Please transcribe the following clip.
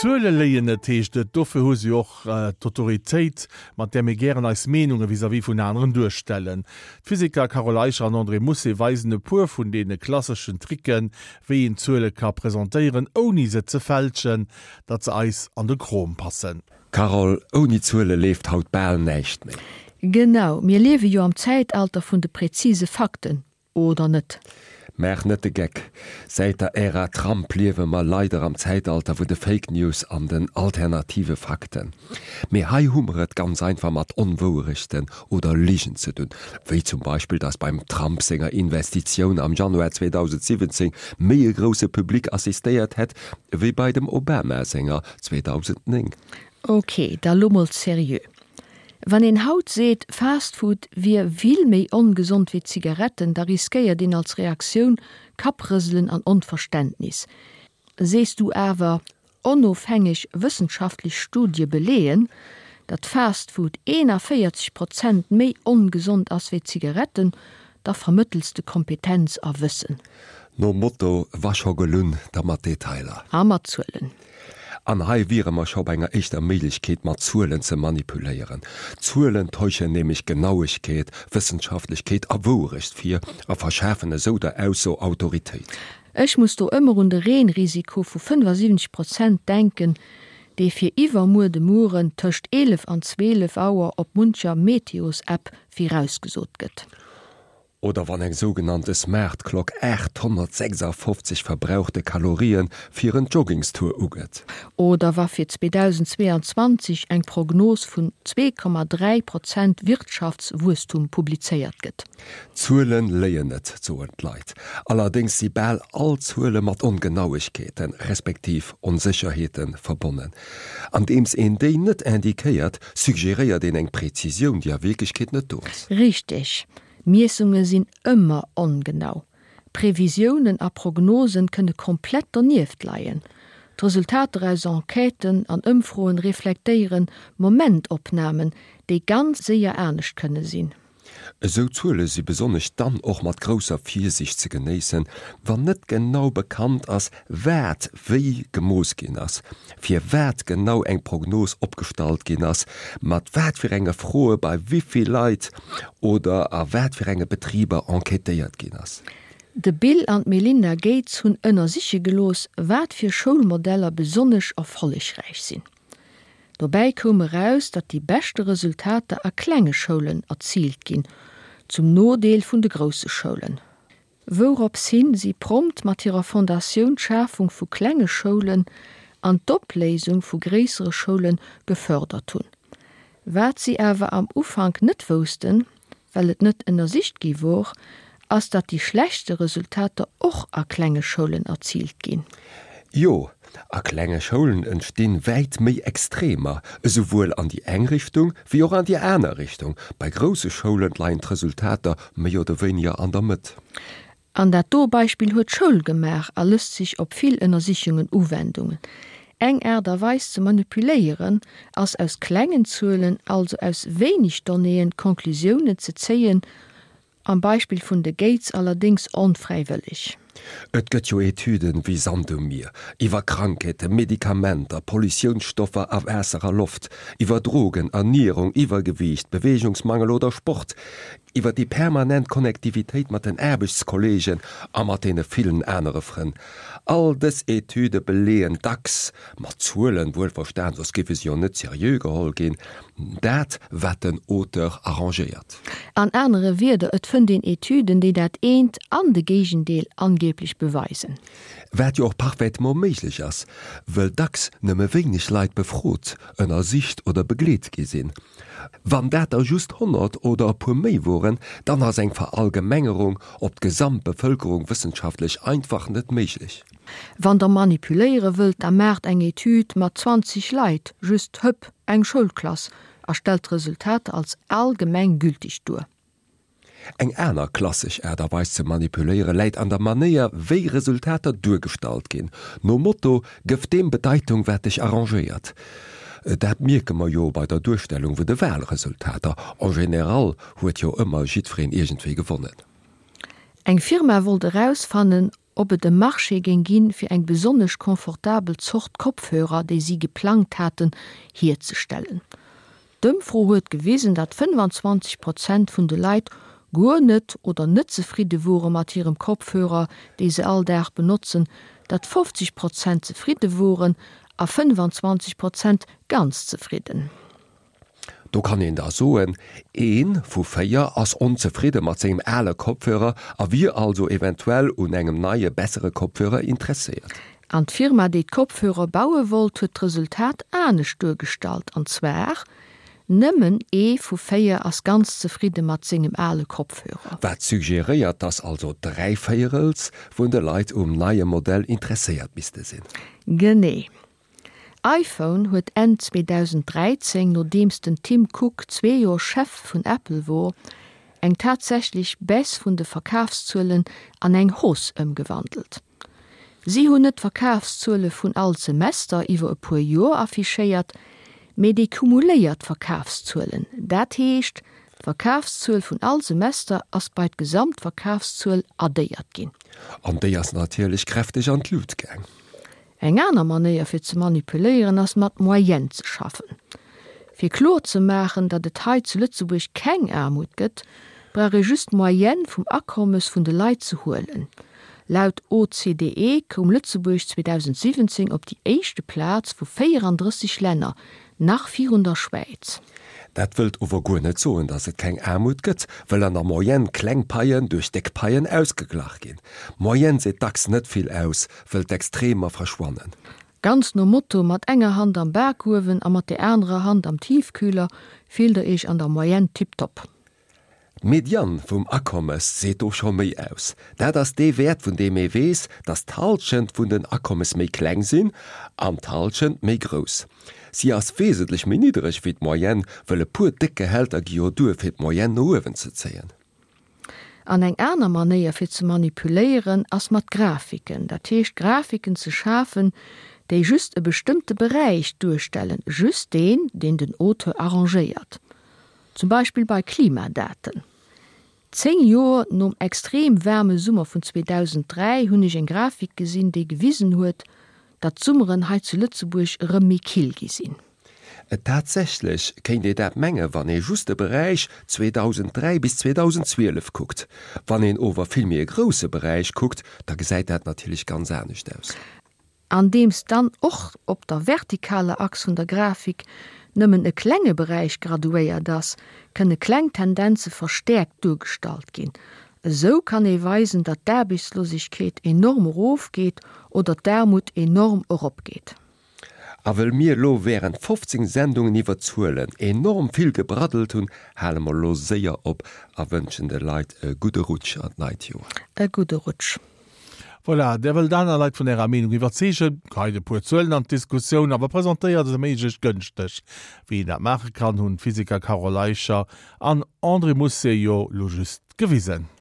Zuele léien net, heescht et. Dofir hu se jo och d'Autoritéit, mat där mir gären eis Meenunge vis-à-vis vun aneren duerstellen. D'Physiker Carole Eicher an André Mousset weisen e puer vun deene klasseschen Tricken, wéi een Zuele ka presentéieren, ouni se ze fälschen, datt se eis an de Krom passen. Carole, ouni Zuele leeft haut bal näischt méi. Genau, mir liewe jo am Zäitalter vun de präzise Fakten, oder net? Maach net de Geck. Säit der Ära Trump liewe mer leider am Zäitalter vun de Fake News an den alternative Fakten. Mee hei hu mer et ganz einfach mat Onwouerechten oder Ligen ze dunn, wéi zum Beispill, dass beim Trump senger Investitioun am Januar 2017 méi e grousse Public assistéiert hätt, wéi bei dem Obama senger 2009. Ok, da lo mol seriö. Wann een haut seet, Fast Food wier vill méi ongesond wéi Zigaretten, da riskéiert een als Reaktioun Kapprëselen an Onverständnis. Sees du awer, onofhängeg wëssenschaftlech Studie beleeën, datt Fast Food 41 Prozent méi ongesond ass wéi Zigaretten, da vermëttels de Kompetenz a Wëssen. Nom Motto, Wa scho gelunn, da mat Detailer. A mat Zuelen. An hei wiere mer scho bei enger éischter Méiglechkeet, mat Zuelen ze manipuléieren. Zuelen täuschen nämlech Genauegkeet, Wëssenschaftlechkeet a Wouerecht vir a verschafen esou der Ausso Autoritéit. Ech muss do ëmmer un de Reenrisiko vu 75 Prozent denken, dee fir iwwermuer de Mueren tëscht 11 an 12 Auer op muncher Meteos-App virausgesot gëtt. Oder wann eng sougenannte Smart Clock 856 verbrauchte Kalorien fir en Joggingstour ugëtt. Oder wa fir 2022 eng Prognos vun 2,3 Prozent Wirtschaftswuesstum publizéiert gëtt. Zuelen léien net, soen d'Leit. Allerdéngs si bal all Zuele mat Ongenauegkeeten, respektiv Onsécherheete verbonnen. Andeems een déi net indiquéiert, suggeréiert een eng Präzisioun, déi a Wierklechkeet net do ass. Richteg. Miessunge sinn ëmmer ongenau. Previsiounen a Prognosen kënne komplett donieft leien. D'Resultater aus Enquêten an Ëmfroen reflektéieren Momentopnamen, déi ganz séier anescht kënne sinn. Esou Zuele si besonnesch dann och mat grousser Virsiicht ze genéissen, wann net genau bekannt ass, wat wéi gemooss ginn ass, fir wat genau eng Prognos opgestallt ginn ass, mat wat fir enge Froe bei wéi vill Leit oder a wat fir enge Betriber enquêtéiert ginn ass. De Bill an d'Melinda Gates hunn ënnersiche gelooss, wat fir Schoulmodeller besonnesch erfollegräich sinn. Dobäi koum eraus, datt déi beschte Resultater a klenge Schoulen erziilt ginn, zum Nodeel vun de grousse Schoulen. Wourops hin si prompt mat hirer Fondatioun d'Schafung vu klenge Schoulen an d'Opléisung vu gréissere Schoule gefördert hunn. Wat si awer am Ufank net woussten, well et net ënnersicht gi wor, ass datt déi schlechtste Resultater och a klenge Schoulen erziilt ginn. Jo, a klenge Schoulen entstinn wäit méi Extremer, esouwuel an déi eng Richtung wéi och an déi aner Richtung. Bei grousse Schoulen leien d'Resultater méi oder wéiniger an der Mëtt. An dat do Beispill huet Schoul gemaach a lësst sech op vill Ënnersichungen Uwendungen. Eng Aart a Weis ze manipuléieren ass aus klengen Zuelen, also aus wéineg Donnéeën, Conclusiounen ze zéien, Am Beispill vun de Gates allerdéngs onfräiwëlleg. Et gëtt jo Etüden wéi Sand um Mier, iwwer Krankheeten, Medikamenter, Pollutiounsstoffer a Waasser a Loft, iwwer Drogen, Ernierung, Iwwergewiicht, Beweegungsmangel oder Sport, iwwer déi permanent Connectivitéit mat den Aarbechtskolleegen a mat deene villen anere Frënn. All dës Etüde beleeën, dacks mat Zuelen wuelverstan, soss géife se jo net seriö geholl ginn, dat wat den Auteur arrangéiert. An anere Wierder, et fënnt een Etüden, déi dat eent an de Géigendeel angeblech beweisen. Wat jo och parfaitement méiglech ass, wëll dacks nëmme wéineg Leit befrot, ënnersicht oder begleet gi sinn. Wann dat der just 100 oder e puer méi woren, dann ass eng Verallgemengerung op d'gesamt Bevëlkerung wëssenschaftlech einfach net méiglech. Wann der manipuléiere wëllt, da maacht eng Etüd mat 20 Leit, just hëpp, eng Schoulklass, a stellt d'Resultater als allgemeng gültig duer. Eng aner klassesch Aart a Weis ze manipuléiere läit an der Manéier wéi Resultater duergestallt ginn, nom Motto, Gëff deem Bedeitung wat dech arrangéiert. Dat mierke mer jo bei der Duerstellung vun de Wahlresultater, en général huet jo ëmmer jiddwereen iergendwéi gewonnen. Eng Firma wollt erausfannen. Ob et e Marché géing ginn, fir eng besonnesch confortabel Zort Kopfhörer, déi si geplangt haten, hierzestellen. D'Ëmfro huet gewisen, datt 25 Prozent vun de Leit guer net oder net zefridde wore mat hirem Kopfhörer, dee se all Dag benotzen, datt 50 Prozent zefridde woren a 25 Prozent ganz zefridden. Do kann een da soen, ee vu 4 ass onzefridde mat sengem ale Kopfhörer a wier also eventuell un engem neie, bessere Kopfhörer interesséiert. An d'Firma, déi d'Kopfhörer baue wollt, huet d'Resultat anescht duergestallt, an zwar, Nëmmen ee vu 4 ass ganz zefridde mat sengem ale Kopfhörer. Wat suggeréiert, dass also dräivéierels vun de Leit um neie Modell interesséiert misste sinn. Genee. iPhone huet Enn 2013, nodeems den Tim Cook zwee Joer Chef vun Apple wor, eng tatsächlech Baisse vun de Verkafszuelen an eng Hausse ëmgewandelt. Si hunn net d'Verkafszuele vun all Semester iwwer e puer Joer affichéiert, mee déi cumuléiert Verkafszuelen, dat heescht d'Verkafszuel vun all Semester ass bei d'Gesamtverkafszuel addéiert ginn. An déi ass natierlech kräfteg an d'Lut gaang. Eng aner Manéier fir ze manipuléieren ass mat Moyenne ze schaffen. Fir kloer ze maachen, datt et hei zu Lëtzebuerg keng Aarmut gëtt, brauch ee just d'Moyenne vum Akommes vun de Leit ze huelen. Laut OCDE koum Lëtzebuerg 2017 op déi éischte Plaz vu 34 Länner, nach virun der Schwäiz. Dat wëllt ower guer net soen, datt et keng Aarmut gëtt, wëll an der Moyenne kleng Paien duerch déck Paien ausgeglach ginn. D'Moyenne seet dacks net vill aus, wëll d'Extremer verschwannen. Ganz nom Motto, mat enger Hand am Bakuewen a mat der anerer Hand am Tiefkühler fillt der iech an der Moyenne tiptop. D'Median vum Akommes seet do scho méi aus. Dat ass dee Wäert vun deem ee weess, datt d'Hallschent vun den Akommes méi kleng sinn an d'Hallschent méi grouss. Si ass wesentlech méi niddereg wéi d'Moyenne, wëll e puer déck Gehälter gi jo duer fir d'Moyenne no uewen ze zéien. An eng aner Manéier fir ze manipuléieren ass mat Grafiken, dat heescht Grafiken ze schafen, déi just e bestëmmte Beräich duerstellen, just deen, deen den Auteur arrangéiert. Zum Beispill bei Klimadaten. 10 Joer nom extrem waarme Summer vun 2003 hunn ech eng Grafik gesinn, déi gewisen huet, datt d'Summeren hei zu Lëtzebuerg erëm méi kill gi sinn. Tatsächlech kéint ee dat menge wann ee just de Beräich 2003 bis 2012 kuckt. Wann een ower vill méi e grousse Beräich kuckt, da gesäit dat natierlech ganz anescht aus. Andeems dann och op der vertikaler Achs vun der Grafik nëmmen e klenge Beräich graduéiert ass, kënne kleng Tendenze verstäerkt duergestallt ginn. Esou kann ee weisen, datt d'Aarbechtslosegkeet enorm erofgeet oder d'Aarmut enorm eropgeet. A wëll mir elo während 15 Sendungen iwwer Zuelen enorm vill gebraddelt hunn, hale mer elo séier op a wënschen de Leit e gudde Rutsch an d'neit Joer. E gudde Rutsch. Voilà, Där wëllt aner Leit vun Ärer Meenung iwwerzeegen, geheit e puer Zuelen an d'Diskussioun, awer presentéiert se méiglechst gënschteg. Wéi een dat maache kann, hunn d'Physiker Carole Eicher an André Mousset jo lo just gewisen.